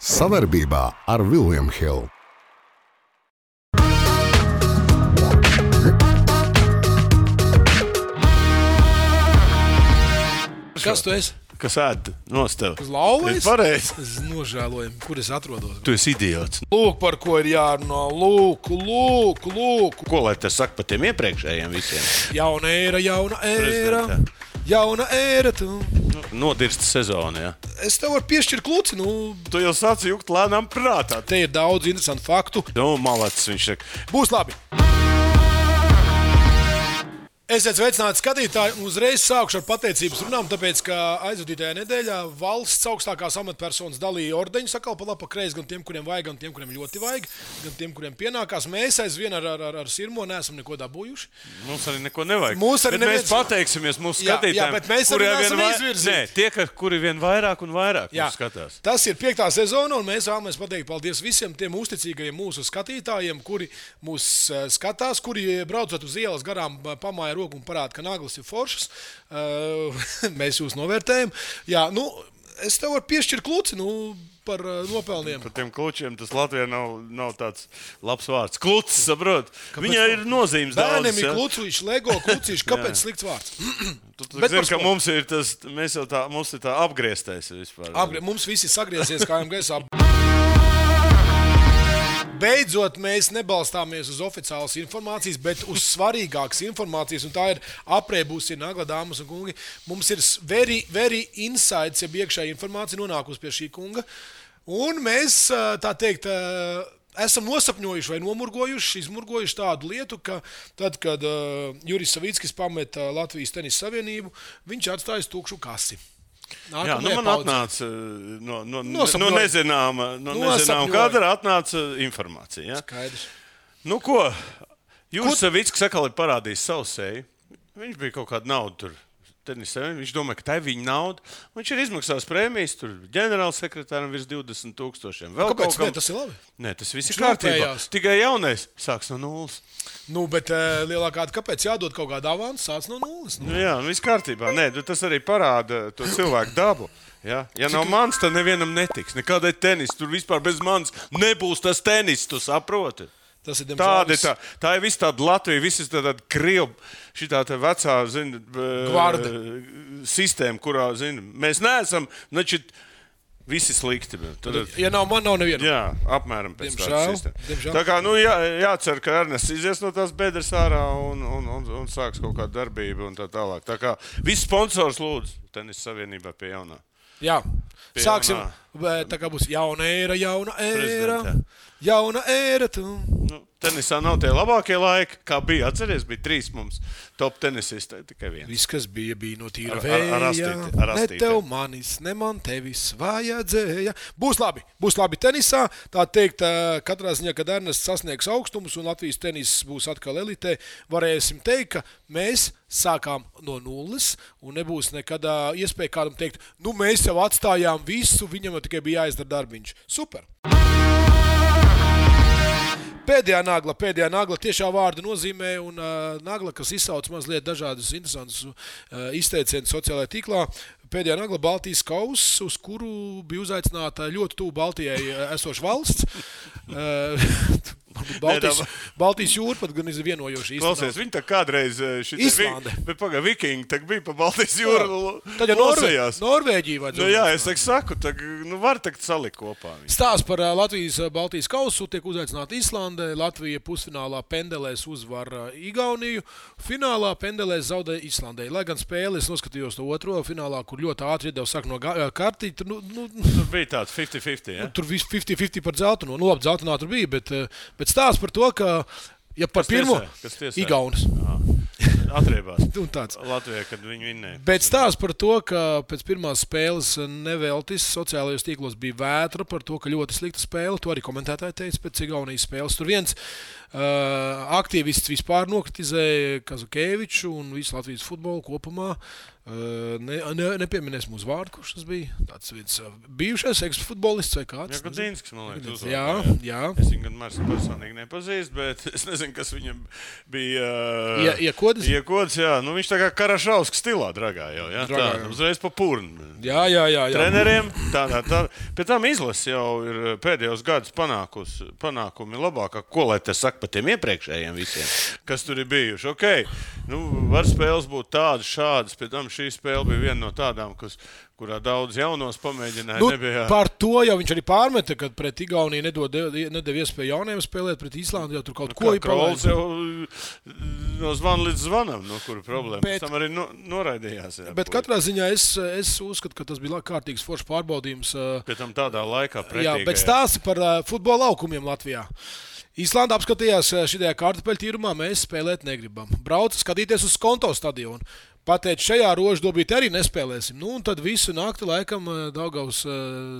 Savarbībā ar William Hill. Kas tu esi? Kas ēd nost tev? Uz lauvas? Pareizi. Es nožēloju, kur es atrodos. Tu esi idiots. Lūk, par ko ir jārunā. Lūk. Ko lai tas saka par tiem iepriekšējiem visiem? Jauna ēra. Prezidentā. Jauna ēra. Tu. Nodirsta sezona, jā. Es tev varu piešķirt kluci. Tu jau sāc jukt lēnām prātā. Te ir daudz interesantu faktu. Malacis viņš saka. Būs labi. Esiet sveicināti skatītāji, un uzreiz sākšu ar pateicības runām, tāpēc, ka aizvadītajā nedēļā valsts augstākās amatpersonas dalīja ordeņus sakal pa labi pa kreisi gan tiem, kuriem vajag, gan tiem, kuriem ļoti vajag, gan tiem, kuriem pienākās. Mēs aizvien ar Sirmo neesam neko dabūjuši. Mums arī neko nevajag. Mēs pateiksimies mūsu skatītājiem. Jā, bet mēs arī neesam izvirzīti. Nē, tie, kuri vien vairāk un vairāk mūs skatās. Tas ir 5. sezona, un mēs vēlamies pateikt paldies visiem tiem uzticīgajiem mūsu skatītājiem, kuri mūs skatās, kuri braucot uz ielas garām pamāja roku un parāda, ka naglas ir foršas. Mēs jūs novērtējam. Jā, es tev varu piešķirt kluci, par nopelniem. Par tiem klučiem tas Latvijā nav tāds labs vārds. Klucis, saprot? Viņai ir nozīmes daudz. Bērniem ir klucīši, Lego klucīši. Kāpēc slikts vārds? Tu zini, ka mums ir tas, mums ir tā apgrieztais vispār. Mums visi sagriezies kājām gaisā. Beidzot, mēs nebalstāmies uz oficiālas informācijas, bet uz svarīgākas informācijas, un tā ir aprēbusi Nagla, dāmas un kungi. Mums ir very insights, ja iekšēja informācija nonākusi pie šī kunga, un mēs, tā teikt, esam nosapņojuši vai izmurgojuši tādu lietu, ka tad, kad Juris Savickis pameta Latvijas tenisa savienību, viņš atstājas tukšu kasi. Jā, man atnāca no nezināma kadra atnāca informācija. Ja? Skaidrs. Ko? Juris Savickis atkal ir parādījis savu seju. Viņš bija kaut kādu naudu tur. Viņš domāja, ka tā ir viņa nauda. Viņš ir izmaksājis prēmijas, tur ģenerālsekretāram virs 20,000. Kāpēc? Nē, tas ir labi. Nē, tas viss ir kārtībā. Tikai jaunais sāks no nulles. Bet lielākā kāpēc jādod kaut kāda avansa, sāc no nulles? Jā, viss kārtībā. Nē, tas arī parāda to cilvēku dabu. Ja nav mans, tad nevienam netiks. Nekādai tenis, tur vispār bez manis nebūs tas tenis, tu saproti. Tas ir tā ir viss tāda Latvija, viss tāda Krievu, šitā tā vecā, gvarda sistēma, kurā, mēs neesam, visi slikti. Ja nav man, nav neviena. Jā, apmēram pēc tādas sistēmas. Tā kā, jācer, ka Ernests izies no tās bedres ārā un sāks kaut kādu darbību un tā tālāk. Tā kā visi sponsors lūdzu Tenisa savienībā pie jaunā. Jā, sāksim, tā kā būs jauna ēra. Jauna ēra. Tenisā nav tie labākie laiki, kā bija. Atceries, bija 3 mums top tenisisti, tikai 1. Viss, kas bija no tīra vēja. Ne tev manis, ne man tevis vajadzēja. Būs labi tenisā. Tā teikt, katrā ziņā, kad Ernests sasniegs augstumus un Latvijas tenis būs atkal elitē, varēsim teikt, ka mēs sākām no nulles un nebūs nekad iespēja kādam teikt, mēs jau atstājām visu, viņam jau tikai bija jāizdara darbiņš. Super! Pēdējā nagla tiešā vārda nozīmē, un nagla, kas izsauc mazliet dažādus interesantus izteicienus sociālajā tīklā. Pēdējā nagla Baltijas kauss, uz kuru bija uzaicināta ļoti tuvu Baltijai esoša valsts. Baltijas jūra pat gan ir vienojoši īstenībā. Klausies, viņi tā kādreiz Islande. Bet vikingi tā bija pa Baltijas jūru. Tad jau Norvēģija vajadzētu. Jā, es saku, var takt salikt kopā. Stāsts par Latvijas Baltijas kausu tiek uzaicināta Islande. Latvija pusfinālā pendelēs uzvar Igauniju. Finālā pendelēs zaudē Islandei. Lai gan spēli es noskatījos to otro finālā, kur ļoti ātri iedeva sāk no kartī. Tur bija tāds 50-50, ja? Tur viss 50-50 par dzeltenu. Labi, dzeltenā tur bija, bet stāsts par to, ka par pirmo Igaunis. Atriebās. Latvijā, kad viņi vinnēja. Bet stāsts par to, ka pēc pirmās spēles neveltis sociālajos tīklos bija vētra par to, ka ļoti slikta spēle. To arī komentētāji teica pēc Igaunijas spēles. Tur viens aktīvists vispār nokritizēja Kazukēviču un visu Latvijas futbolu kopumā. Nepieminēsim uz vārdu, kurš tas bija. Tāds viens bijušais ekspfutbolists vai kāds. Jā, Gudzinskis, man liekas, jā. Es viņu gan Marsu personīgi nepazīstu, bet es nezinu, kas viņam bija. Iekodas? Iekodas, jā. Nu, viņš tā kā Karašauskas stilā dragā jau, jā. Tā, uzreiz pa purnu. Jā. Treneriem. Tā. Pēc tam izlase jau ir pēdējos gadus panākumi labākā. Ko lai te saka par tiem iepriekšējiem visiem, kas tur ir bijuši? Okay. Nu, var spēles būt tādas, šādas, pēc tam šī spēle bija viena no tādām, kurā daudz jaunos pamēģināja. Nebija... Par to jau viņš arī pārmeta, kad pret Igauniju nedeva iespēju jauniem spēlēt, pret Īslandi jau tur kaut ko ir Krols jau no zvana līdz zvanam, no kura problēma. Pēc tam arī noraidījās. Jā, bet katrā ziņā es uzskatu, ka tas bija kārtīgs foršs pārbaudījums. Pēc tam tādā laikā pretīgajā. Jā, bet stāsti par futbola laukumiem Latvijā. Īslanda apskatījās šajā kartupeļu tīrumā, mēs spēlēt negribam. Brauca skatīties uz Skonto stadionu. Pateic, šajā rožu dobīti arī nespēlēsim. Nu, un tad visu nakti laikam Daugavas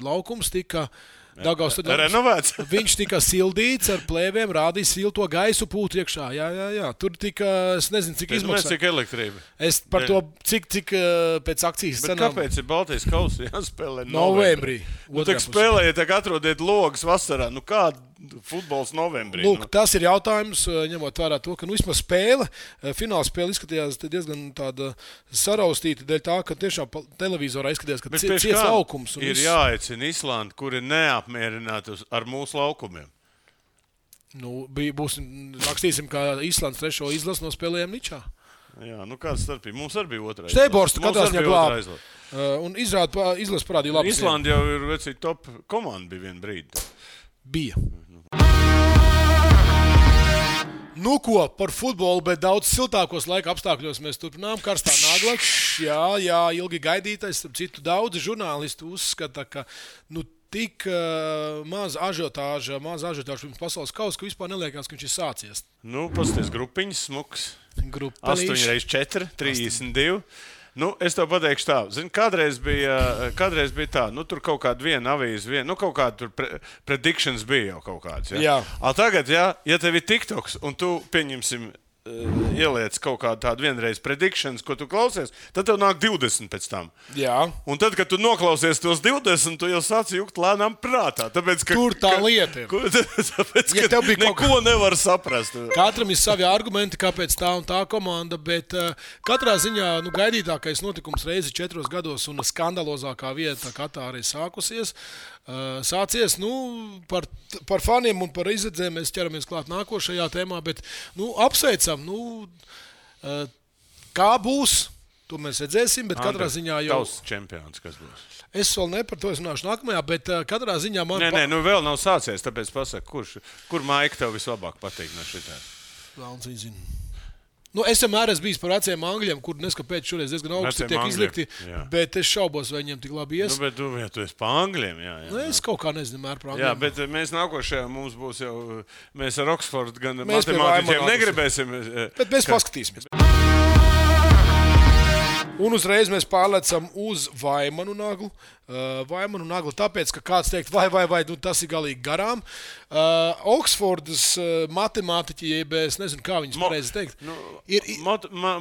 laukums tika renovēts. Viņš tika sildīts ar plēvēm, rādīja silto gaisu pūtu iekšā. Jā. Tur tika, es nezinu, cik izmaksā. Cik elektrība. Es par to, cik pēc akcijas cenām. Bet kāpēc ir Baltijas kausa jāspēlē novembrī? Nu, tak spēlējiet, tak atrodiet logas vasarā. Nu, kāda futbols novembrī? Lūk, tas ir jautājums, ņemot vērā to, ka vismaz spēle, fināla spēle izskatījās diezgan tāda saraustīta dēļ tā, ka tiešām televizorā izskatījās, ka ciets laukums. Ir jāaicina Islanda, kuri neapmierināti ar mūsu laukumiem. Nu, rakstīsim, kā Islandas 3. izlases no spēlējām Ničā. Jā, nu kāds starpība? Mums arī bija otrā. Steiborstu katrā ziņā glāb. Un izlase parādīja labi. Islanda jau ir vecī top komanda bija vien brīdi. Bija. Nu ko, par futbolu, bet daudz siltākos laika apstākļos mēs turpinām. Karstā nagla. Jā, ilgi gaidītais. Starp citu, daudzi žurnālisti uzskata, ka tik maz ažiotāža pirms pasaules kausa, ka vispār neliekās, ka viņš ir sācies. Nu, pasties grupiņas smuks. 8x4, 32. Nu, es tev pateikšu tā. Zini, kādreiz bija tā, nu, tur kaut kāda viena avīze, kaut kāda tur predictions bija jau kaut kāds. Ja? Jā. Tagad, ja tev ir TikToks un tu, pieņemsim, ieliec kaut kādu tādu vienreiz predictions, ko tu klausies, tad tev nāk 20 pēc tam. Jā. Un tad, kad tu noklausies tos 20, tu jau sāc jukt lēnām prātā. Tāpēc, tur tā lieta ir. Tāpēc, ka neko nevar saprast. Katram ir savi argumenti, kāpēc tā un tā komanda, bet katrā ziņā gaidītākais notikums reizi 4 gados un skandalozākā vieta Katārā ir sācies, par faniem un par izredzēm mēs ķeramies klāt nākošajā tēmā, bet apsveicam, kā būs, to mēs redzēsim, bet katrā ziņā jau... Tavs čempions, kas būs? Es vēl ne par to runāšu nākamajā, bet katrā ziņā man... Nē, vēl nav sācies, tāpēc pasaka, kur Maika tev vislabāk patīk no šitā? Vēlns viņa zina. Es vienmēr esmu bijis par veciem angļiem, kur neskapēc šoreiz diezgan augsti tiek izlikti, bet es šaubos, vai viņiem tik labi ies. Bet tu esi par angļiem, jā. Es kaut kā nezinu par angļiem. Jā, bet mēs nākošajā mums būs jau, mēs ar Oksfordu gan matemātiķiem negribēsim. Bet mēs paskatīsimies. Un uzreiz mēs pārlecam uz Vaimanu naglu. Tāpēc, ka kāds teikt, vai, tas ir galīgi garām. Oksfordas matemātiķi, jeb es nezinu, kā viņas pareizi teikt.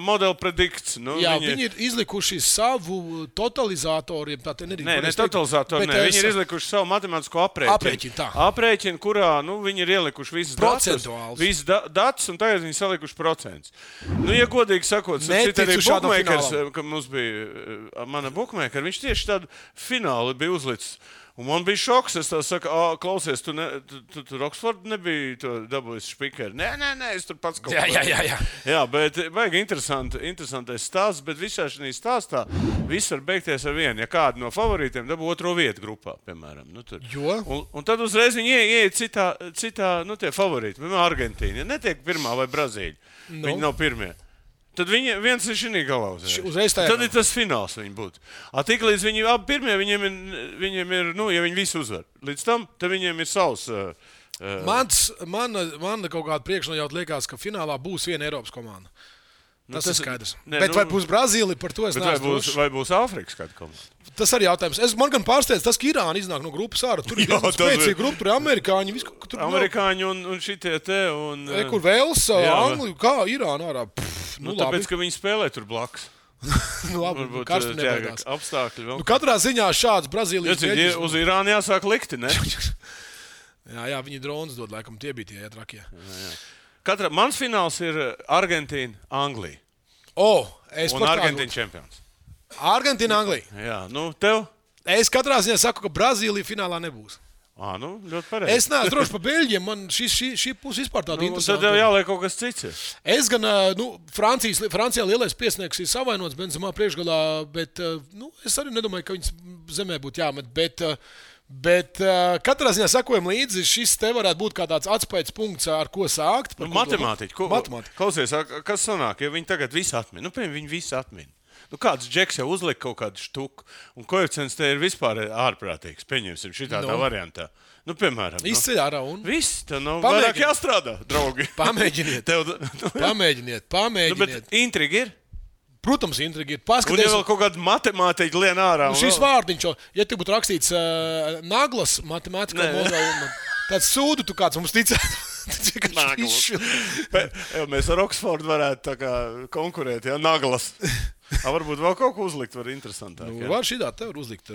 Model predikts. Viņi ir izlikuši savu totalizatoru. Ne totalizatoru, viņi ir izlikuši savu matemātisko aprēķinu, kurā viņi ir ielikuši visas datus, un tagad viņi salikuši procentus. Ja godīgi sakot, citi arī bookmakers, ka mums bija mana bookmaker, viņš tieši tādu fināli bija uzlicis. Un man bija šoks, es tā saku, klausies, tu tur Oksfordu nebija dabūjis špikeri. Nē, es tur pats kaut ko. Jā, bet baigi interesantais stāsts, bet visā šī stāstā viss var beigties ar vienu. Ja kādu no favorītiem dabū 2. vietu grupā, piemēram. Un tad uzreiz viņi ieiet citā tie favorīti, piemēram, Argentīna. Ja netiek 1. vai Brazīļa, viņi nav 1. Tad viens ir šī galā uzreiz. Tad ir tas fināls viņi būtu. Tiklīdz viņi abi 1, viņiem ir, ja viņi visi uzvar. Līdz tam, tad viņiem ir savs... Man kaut kāda priekšnojauta liekas, ka finālā būs viena Eiropas komanda. Tas ir skaidrs. Bet vai būs Brazīlija, par to es neesmu. Vai būs Āfrikas kāda komanda? Tas arī jautājums. Man gan pārsteidz tas, ka Irāna iznāk no grupas ārā. Tur ir spēcīga grupa, tur ir amerikāņi. Amerikāņi un šitie te. Kur Velsa, Anglija, kā Irāna ārā. Tāpēc, ka viņi spēlē tur blakus. Nu, labi, karstu nebaidās. Apstākļi vēl. Nu, katrā ziņā šāds Brazīlijas beļģis. Uz Irānu jāsāk likti, ne? jā, viņi dronas dod, laikam tie bija tie trakie. Mans fināls ir Argentīna, Anglija. Un Argentīna čempions. Argentīna, Anglija. Jā, tev? Es katrā ziņā saku, ka Brazīlija finālā nebūs. Ļoti pareizi. Es neesmu drošs par Beļģiem. Man šī puse vispār tāda interesanta. Tad tev jāliek kaut kas cits. Es gan, Francijā lielais piesniegs ir savainots Benzemā priekšgalā, bet, es arī nedomāju, ka viņas zemē būtu jāmet. Bet katrā ziņā sakojam līdzi, šis te varētu būt kā tāds atspējas punkts, ar ko sākt. Matemātiķi. Klausies, kas sanāk, ja viņi tagad visu atmin? Piemēram, viņi visu atmin. Kāds džeks jau uzlika kaut kādu štuku, un koeficients te ir vispār ārprātīgs. Pieņemsim šitādā variantā. Piemēram. Izceļ ārā un... Viss, tev nav vairāk jāstrādā, draugi. Pamēģiniet. Pamēģiniet. Bet intriga ir? Protams, intriga ir. Un ja vēl kaut kāda matemātika lien ārā. Šis vārdiņš, ja te būtu rakstīts naglas matemātikā modeli, tad sūdu tu kāds mums ticētu. Mēs ar Oksfordu varētu tā kā konkurēt, naglas. Varbūt vēl kaut ko uzlikt, var interesantāk. Var šitā te var uzlikt,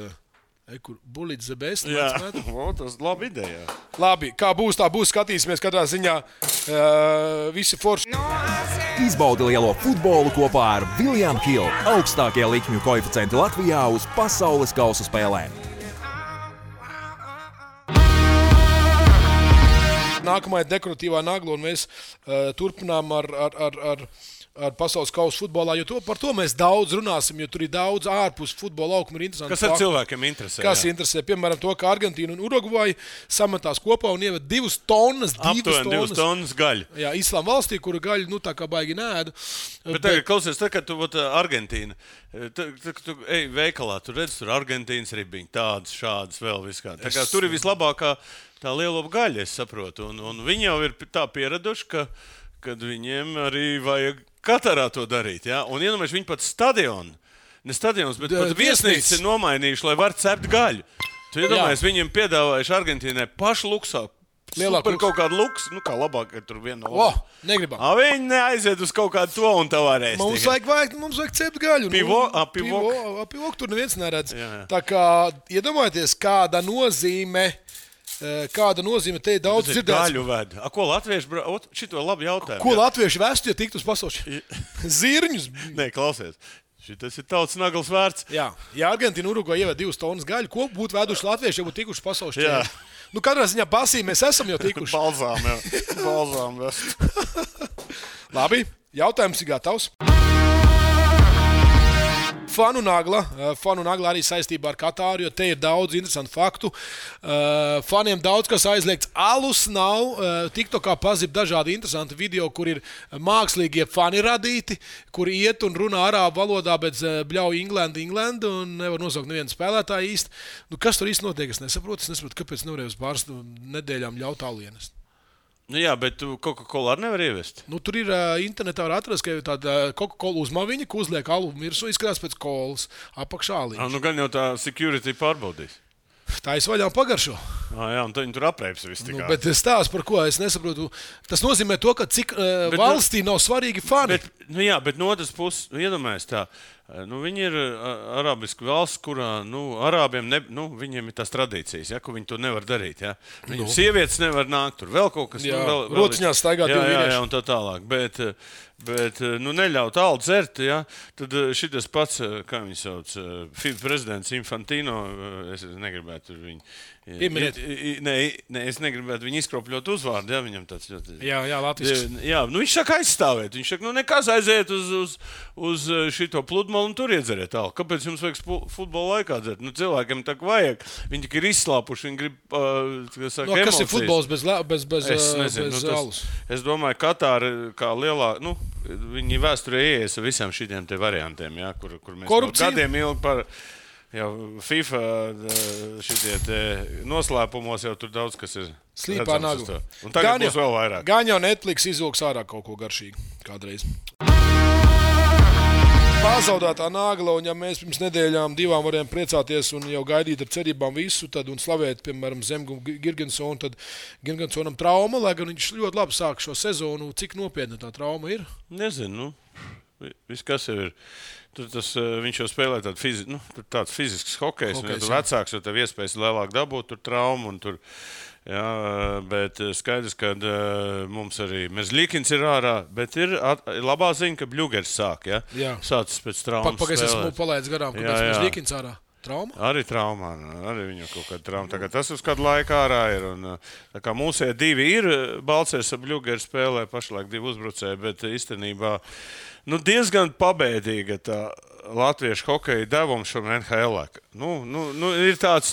kur bulīt the best. Jā, tas ir laba ideja. Labi, kā būs, tā būs, skatīsimies katrā ziņā visi forši. Izbaudi lielo futbolu kopā ar William Hill, augstākie likmju koeficienti Latvijā uz pasaules kausa spēlēm. Nākamā ir dekoratīvā nagla, un mēs turpinām ar pasaules kausa futbolā, jo par to mēs daudz runāsim, jo tur ir daudz ārpus futbola laukuma ir interesanti. Kas ar cilvēkiem interesē? Kas interesē? Piemēram, to, ka Argentīna un Urugvaja sametās kopā un ieved 2 tonnas. Aptuveni 2 tonnas gaļu. Jā, Islāma valstī, kura gaļu, tā kā baigi nēdu. Bet tagad, klausies, kad tu Argentīna, tu ej veikalā, tu redz, tur Argentīnas ribiņi, tādas, šādas, vēl viskā. Tā kā tur ir vislabākā tā lielopa gaļa, es saprotu. Un viņi jau ir tā pieraduši, kad viņiem arī vajag Katarā to darīt, ja? Un iedomājies, viņi pat stadions, bet pat viesnīcas ir nomainījuši, lai var cept gaļu. Tu iedomājies, viņiem piedāvājuši Argentīnai pašu luksā. Super kaut kādu luksu, kā labāk, ka tur viena no labāk. Negribam. Viņi neaiziet uz kaut kādu to un tā varēs. Mums vajag cept gaļu. Pivok tur neviens neredz. Jā. Tā kā iedomājieties, kāda nozīme te ir daudz dzirdēts. Gaļu ved. Ko latvieši šito labi jautājumu. Ko latvieši vestu, ja tiktu uz pasaules? Zirņus. Nē, klausies. Šitas ir tautas naglas vērts. Jā. Ja Argentīna Urugvaja ieved 2 tonnas gaļu, ko būtu veduši latvieši, ja būtu tikuši pasaules čempioni? Katrā ziņā pasī mēs esam jau tikuši. Balzām vest. Labi, jautājums ir gatavs. Fanu nagla arī saistībā ar Katāru, jo te ir daudz interesantu faktu. Faniem daudz kas aizliegts. Alus nav. TikTokā pazib dažādi interesanti video, kur ir mākslīgie fani radīti, kur iet un runā arābu valodā, bet bļauj England un nevar nosaukt nevienu spēlētāju īsti. Kas tur īsti notiek? Es nesaprotu, kāpēc nevarēju uz pāris nedēļām ļaut alienes. Jā, bet tu Coca-Cola arī nevar ievest. Tur ir internetā var atrast, ka ir tāda Coca-Cola uzmaviņa, ko uzliek alu mirsu, izskatās pēc kolas apakšā aliņš. Gan jau tā security pārbaudīs. Tā es vaļā pagaršo. Jā, un viņi tur apreips visu tikai. Bet stāsts par ko es nesaprotu. Tas nozīmē to, ka cik valstī nav svarīgi fani. Bet no otras puses, iedomājies tā. Viņi ir arābiska valsts, kurā arābiem viņiem ir tās tradīcijas, ko viņi to nevar darīt. Ja? Viņiem sievietes nevar nākt, tur vēl kaut kas. Rociņās staigāt divi vīrieši. Jā, un tā tālāk. Bet neļaut alu dzert, ja? Tad šitas pats, kā viņi sauc, FIFA prezidents Infantino, es negribētu viņu. Es negribētu viņu izkropļot uzvārdu, ja viņam tāds ļoti. Jā, latvisks. Jā, viņš saka aizstāvēt. Viņš saka, nekas aiziet uz šito pludmali un tur iedzeriet alu. Kāpēc jums vajag futbola laikā dzert? Cilvēkiem tā vajag. Viņi tik ir izslāpuši, viņi grib, kas ir futbols bez alus? Es domāju, Katāra kā lielā, viņi vēsturē ieies ar visiem šitiem te variantiem, ja, kur mēs korupcija? Gadiem ilgi par FIFA šitie te noslēpumos jau tur daudz, kas ir slīpā nagla. Un tagad būs vēl vairāk. Gan jau Netflix izvilks ārā kaut ko garšīgu kādreiz. Pazaudētā nagla, un ja mēs pirms nedēļām 2 varējām priecāties un jau gaidīt ar cerībām visu, tad un slavēt, piemēram, Zemgu Girgensonu, tad Girgensonam trauma, lai gan viņš ļoti labi sāk šo sezonu. Cik nopietna tā trauma ir? Nezinu, viss kas jau ir. Tur viņš jau spēlē tāds fizisks hokejs, un ja tu vecāks, jo tev iespējas lielāk dabūt tur traumu un tur. Jā, bet skaidrs, ka mums arī Merzlikins ir ārā, bet ir labā ziņa, ka Bļugers sāk, ja? Jā. Sācis pēc traumas Pagaidzi, spēlēt. esmu palaidis garām, kāpēc Merzlikins ārā? Trauma? Arī traumā, arī viņu kaut kāda trauma. Tagad tas uz kādu laiku ārā ir. Un, tā kā mūsie divi ir, Balcers ar Bļugeri spēlē pašlaik 2 uzbrucēji, bet īstenībā diezgan pabēdīga tā latviešu hokeja devums šom NHL. Ir tāds,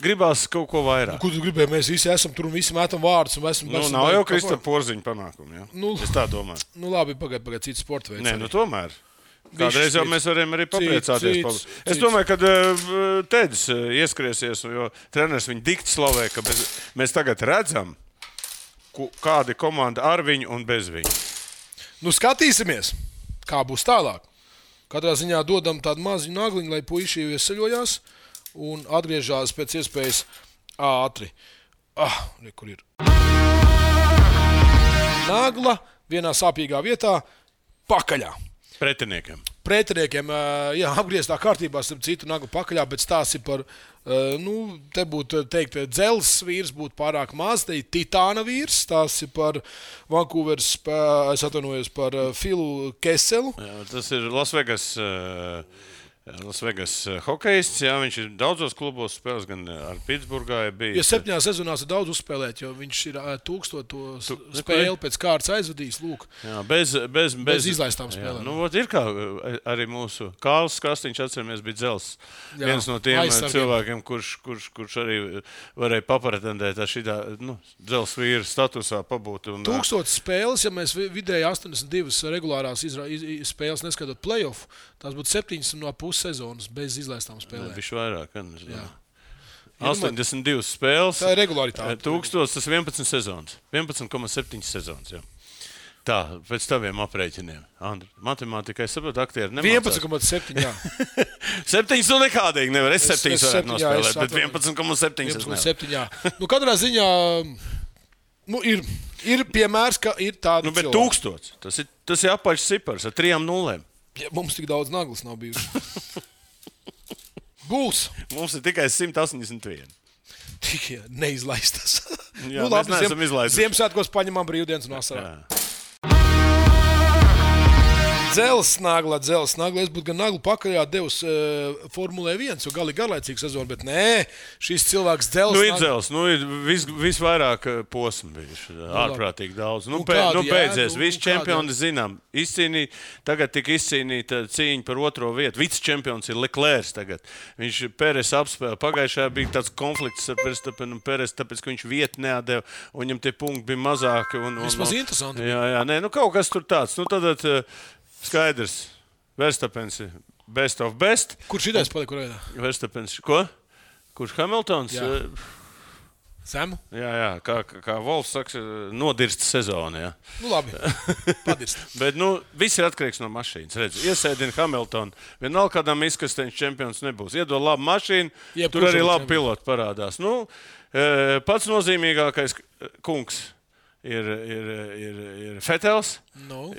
gribās kaut ko vairāk. Ko tu gribēji? Mēs visi esam tur un visi metam vārdus. Nav jau Kristapa Porziņa panākumi, ja? Es tā domāju. Labi, pagaid, cits sporta veids. Nē, tomēr. Kādreiz jau mēs varam arī papriecāties. Es domāju, ka Tedis ieskriesies, jo treneris viņu dikti slavē, ka mēs tagad redzam, kāda ir komanda ar viņu un bez viņu. Skatīsimies, kā būs tālāk. Katrā ziņā dodam tādu maziņu nagliņu, lai puiši iesaļojās un atgriežās pēc iespējas ātri. Kur ir? Nagla vienā sāpīgā vietā pakaļā. Pretiniekiem, apgrieztā kārtībā, starp citu, nagla pakaļā, bet stāsts ir par, te būtu teikt, dzelzs vīrs būtu pārāk maz, te ir titāna vīrs, stāsts ir par Vancouveras, es atvainojos par Filu Keselu. Jā, tas ir Las Vegas hokejists, jā, viņš ir daudzos klubos spēlēs, gan ar Pitsburgā bija. Ja 7 sezonās ir daudz uzspēlēt, jo viņš ir 1000 spēli pēc kārtas aizvadījis, lūk. Jā, bez izlaistām spēlēm. Ir kā arī mūsu Kārlis Kastiņš, atceramies, bija dzels. Viens no tiem cilvēkiem, kurš arī varēja papretendēt ar šitā dzels vīra statusā pabūt. 1000 spēles, ja mēs vidēji 82 regulārās spēles neskatot playoff, tās būtu 7,5 sezonas bez izlaistām spēlēm. Bišķi vairāk, jā. 82 spēles. Tā ir regularitāte. 1000, tas 11 sezonas. 11,7 sezonas, jā. Tā, pēc taviem aprēķiniem. Andri, matemātikai saprot, aktieri nemācās. 11,7, jā. 7 nekādīgi nevar. Es 7 varētu nospēlēt, bet 11,7 es nevar. 11,7, jā. Katrā ziņā ir piemērs, ka ir tāda bet 1000. Tas ir apaļš cipars ar 3 nulēm. Ja, mums tik daudz naglas nav bijuši. Būs. Mums ir tikai 181. Tikai neizlaistas. Jā, mēs neesam izlaiduši. Ziemassvētkos paņemam brīvdienas un vasarā. Dzels nagla. Es būtu gan naglu pakaļā devis Formulē 1, jo gali garlaicīga sezona, bet nē, šis cilvēks dzels. Ir dzels, ir visvairāk posmu bijuši, ārprātīgi daudz. Beidzies, visi čempioni zinām, tagad tika izcīnīta cīņa par 2. vietu. Vicečempions ir Leclerc tagad. Viņš Peres apspēlē. Pagājušajā bija tāds konflikts ar Verstappenu un Peres, tāpēc, ka viņš vietu neatdeva, un viņam tie punkti bija mazāki. Vismaz interesanti. Jā, kaut kas tur tāds. Tad skaidrs, Verstappens ir best of best. Kurš idejs palika kurā? Verstappens, ko? Kurš Hamiltons? Zemu? Jā, kā Volfs saka, nodirsta sezona, jā. Labi, padirst. Bet, viss ir atkarīgs no mašīnas. Redz, iesēdina Hamiltonu, vienalga kādām izkasteņš čempions nebūs. Iedod labu mašīnu, tur arī labi piloti parādās. Pats nozīmīgākais kungs ir Fetels,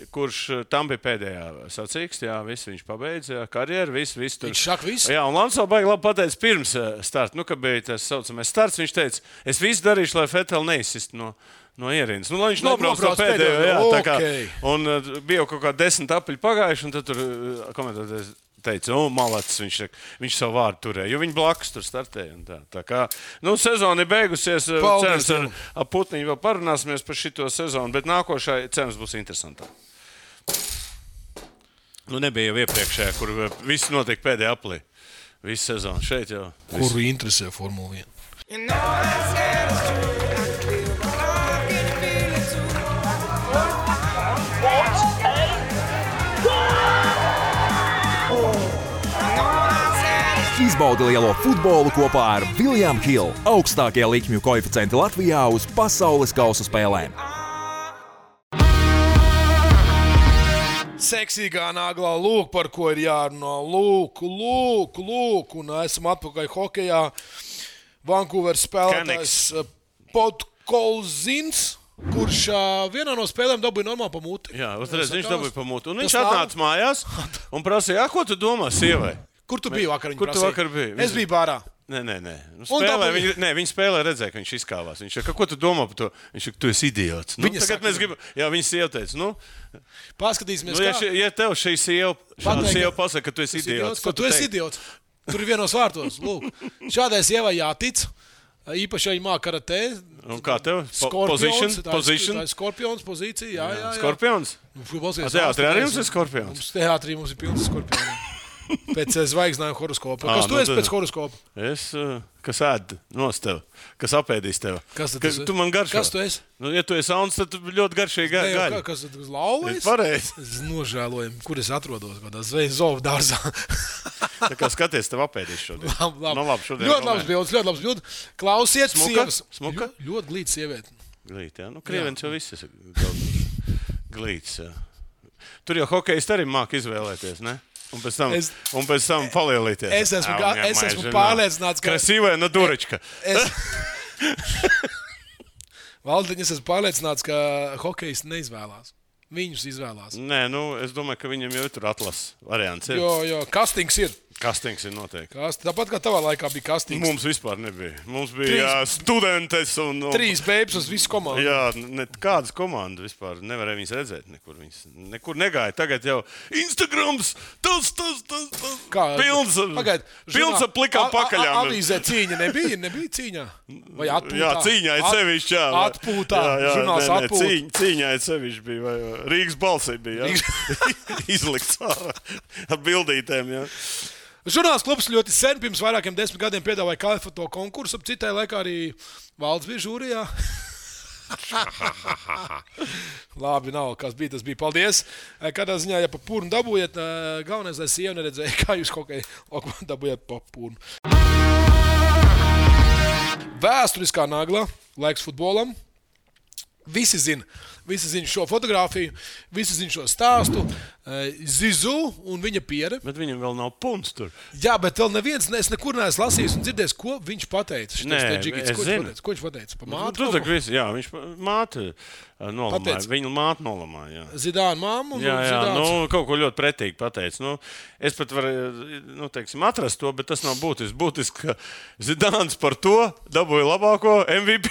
kurš tam bija pēdējā sacīksts. Jā, viņš pabeidza karjeru, viss tur. Viņš saka visu. Jā, un Lanso baigi labi pateica pirms starta, kad bija tas saucamais starts, viņš teica, es visu darīšu, lai Fetel neizsist no ierīnas. Lai viņš nobrauc no pēdējo, jā, tā kā. Un bija jau kaut kā 10 apaļi pagājuši, un tad tur komentētājs teica, malacis, viņš savu vārdu turēja, jo viņi blakus tur startēja. Tā kā, sezona ir beigusies, cerams, ar Putniņu vēl parunāsimies par šito sezonu, bet nākošā, cerams, būs interesantāk. Nebija jau iepriekšējā, kur viss notiek pēdējā aplī. Visu sezonu šeit jau. Kuru interesē Formula 1? Izbaudi lielo futbolu kopā ar William Hill, augstākie likmju koeficienti Latvijā uz pasaules kausa spēlēm. Seksīgā naglā, lūk, par ko ir jārunā. Lūk, un esam atpakaļ hokejā. Vancouveras spēlētājs Podkolzins. kurš vienā no spēlēm dabūja normāli pa muti. Jā, uzreiz viņš dabūja pa muti. Un viņš atnāca mājās un prasīja, ko tu domā sievai? Kur tu biji vakar? Kur tu vakar biji? Es biju bārā. Nē. Viņi spēlē, redzēja, ka viņš izkāvās. Viņš saka, ko tu domā par to? Viņš saka, tu esi idiots. Tagad mēs gribam, viņa sieva teica, paskatīsimies, ja tev šī sieva pasaka, ka tu esi idiots. Tu esi idiots. Tur ir vienos vārtos. Lūk, šādai sievai jātic. Īpaši viņa māca karatē. Un kā tev? Position. Tā ir skorpions pozīcija. Jā. Skorpions? Teātrī arī mums ir skorpions? Teātrī mums ir pilns skorpions. Pēc zvaigznājuma horoskopa. Kas tu esi pēc horoskopa? Es, kas ēd nos tev, kas apēdīs tev. Tu man garšo. Kas tu esi? Ja tu esi auns, tad tu ļoti garšīgi gaļi. Kas tu esi lauvējis? Pareizi. Es nožēloju, kur es atrodos, kādā zovu dārzā. Tā kā skaties, tev apēdīs šodien. Labi. Ļoti labs bildes. Klausiet, sievas. Smuka? Ļoti glīts sieviete. Glīt, jā. Krievens jau viss ir glīts. Tur jau hokejist arī māk izvēlēties, ne? Un pēc tam palielīties. Es esmu pārliecināts, ka... Krasīvē no durečka. Valdiņ, es esmu pārliecināts, ka hokejs neizvēlās. Viņus izvēlās. Nē, es domāju, ka viņam jau ir tur atlases variants. Jo, kastings ir. Kastings ir noteikti. Tāpat kā tavā laikā bija kastings. Mums vispār nebija. Mums bija studentes un... 3 bēbs uz visu komandu. Jā, kādas komandas vispār nevarēja viņas redzēt. Nekur negāja. Tagad jau Instagrams, tas. Pilns ar plikām pakaļām. Avīzē cīņa nebija cīņā? Vai atpūtā? Jā, cīņā ir sevišķi, jā. Atpūtā, žurnāls atpūtā. Cīņā ir sevišķi bija, vai Rīgas balsī bija, jā. Izlikts ar bildītēm, jā. Žurnāls klubs ļoti sen, pirms vairākiem 10 gadiem piedāvāja kalifoto konkursu. Citai laikā arī valdes bija žūrijā. Labi, nav, kas bija, tas bija. Paldies. Kādā ziņā, ja pa pūrnu dabūjiet, galvenais, lai sieva neredzēja, kā jūs kaut kā dabūjiet pa pūrnu. Vēsturiskā nagla, laiks futbolam. Visi zina šo fotogrāfiju, visi zina šo stāstu. Zizu un viņa piere. Bet viņam vēl nav punts tur. Jā, bet vēl neviens, es nekur neesmu lasījis un dzirdējis, ko viņš pateica. Nē, es zinu. Ko viņš pateica? Pa māti? Jā, viņš māti nolamāja. Viņa māti nolamāja. Zidāna māmu un Zidāns. Kaut ko ļoti pretīgi pateica. Es pat varu, atrast to, bet tas nav būtiski. Būtiski, ka Zidāns par to dabūja labāko MVP.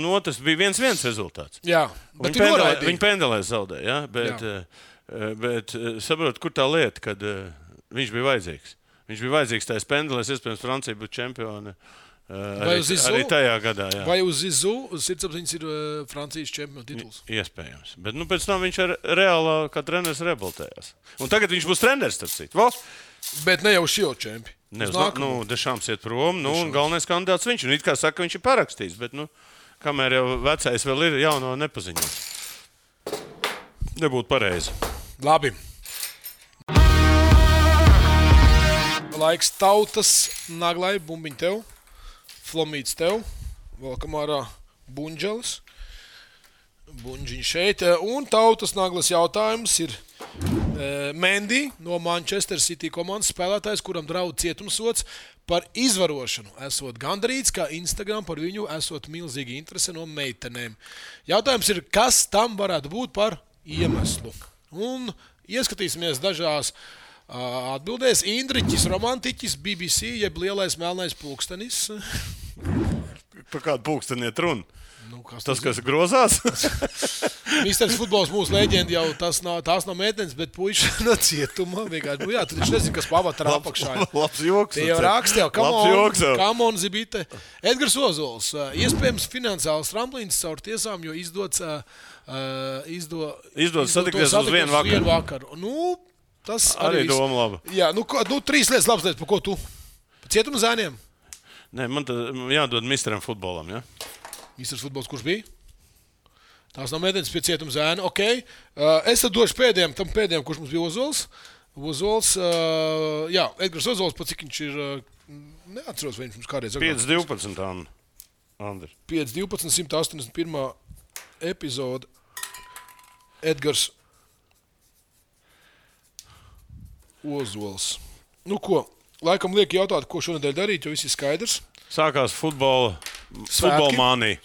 Otrs bija 1-1 rezultāts. Jā, bet viņi pendelēs zaudēja, ja? Bet saprot, kur tā lieta, kad viņš bija vajadzīgs. Viņš bija vajadzīgs tajās pendelēs, iespējams, Francija būtu čempioni arī tajā gadā. Jā. Vai uz Zizu sirdsapziņas ir Francijas čempionu tituls? Iespējams. Bet pēc tam viņš reālā kā treneris reabilitējās. Un tagad viņš būs treneris, starp citu. Bet ne jau šio čempi. Dešāms iet prom, un galvenais kandidāts viņš. Un it kā saka, viņš ir parakstījis, bet, kamēr jau vecais vēl ir, jauno nepaziņots. Nebūtu pareizi. Labi. Laiks tautas naglai, bumbiņ tev, flomīts tev, valkam ārā buņģelis. Buņģiņ šeit. Un tautas naglas jautājums ir Mendy no Manchester City komandas spēlētājs, kuram draud cietumsods par izvarošanu. Esot gandarīts, ka Instagram par viņu esot milzīgi interese no meitenēm. Jautājums ir, kas tam varētu būt par iemeslu? Un ieskatīsimies dažās atbildēs. Indriķis, romantiķis, BBC, jeb lielais melnais pulkstenis. Par kādu pulksteniet runu? Tas, kas grozās? Misters futbols mūsu leģendi jau tās nav meitenes, bet puiši no cietuma. Vienkārši, tu taču nezini, kas pavatarā apakšā. Labs joks. Tie jau raksta jau, come on, zibite. Edgars Ozols, iespējams finansiāls tramplīns caur tiesām, jo izdodas satikties uz vienu vakaru. Tas arī doma laba. Jā, 3 lietas labs lietas, par ko tu? Par cietuma zēniem? Nē, man tad jādod misteram futbolam, ja? Misters futbols, kurš bija? Tās nav meitenes pie cietuma zēna. Ok. Es tad došu pēdējiem, kurš mums bija Ozols. Edgars Ozols, pat cik viņš ir, neatceros, vai viņš mums kādreiz. 5-12, Andri. 5-12, 181. epizode. Edgars Ozols. Ko? Laikam liek jautāt, ko šonedēļ darīt, jo viss ir skaidrs. Sākās futbola mānija.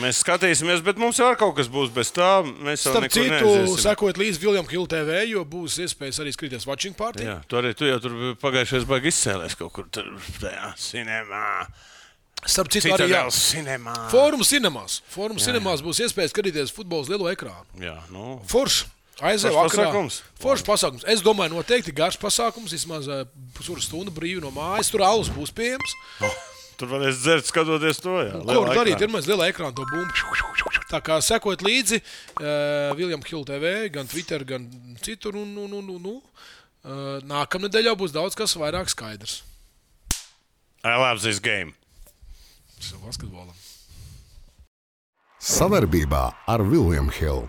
Mēs skatīsimies, bet mums jau ar kaut kas būs bez tā. Mēs jau Starp nekur citu, neaiziesim. sekojot līdz William Hill TV, jo būs iespējas arī skrieties watching party. Jā, tu jau tur pagājušajās baigi izcēlēs kaut kur tajā cinemā. Starp citu, arī jā. Cinemā. Fórum cinemās būs iespējas skatīties futbola uz lielo ekrānu. Jā, nu. Forši. Aizēju Foršs vakarā. pasākums. Foršs pasākums. Es domāju, noteikti garš pasākums, vismaz pusotru stundu brīvi no mājas. Tur alus būs pieejams. Tur varēs dzert, skatoties to. Jā, Ko var darīt? Ir mēs lielā ekrāna to bumbu. Tā kā sekot līdzi William Hill TV, gan Twitter, gan citur. Nākamnedēļ jau būs daudz kas vairāk skaidrs. I love this game. Basketbolam. Savarbībā ar William Hill.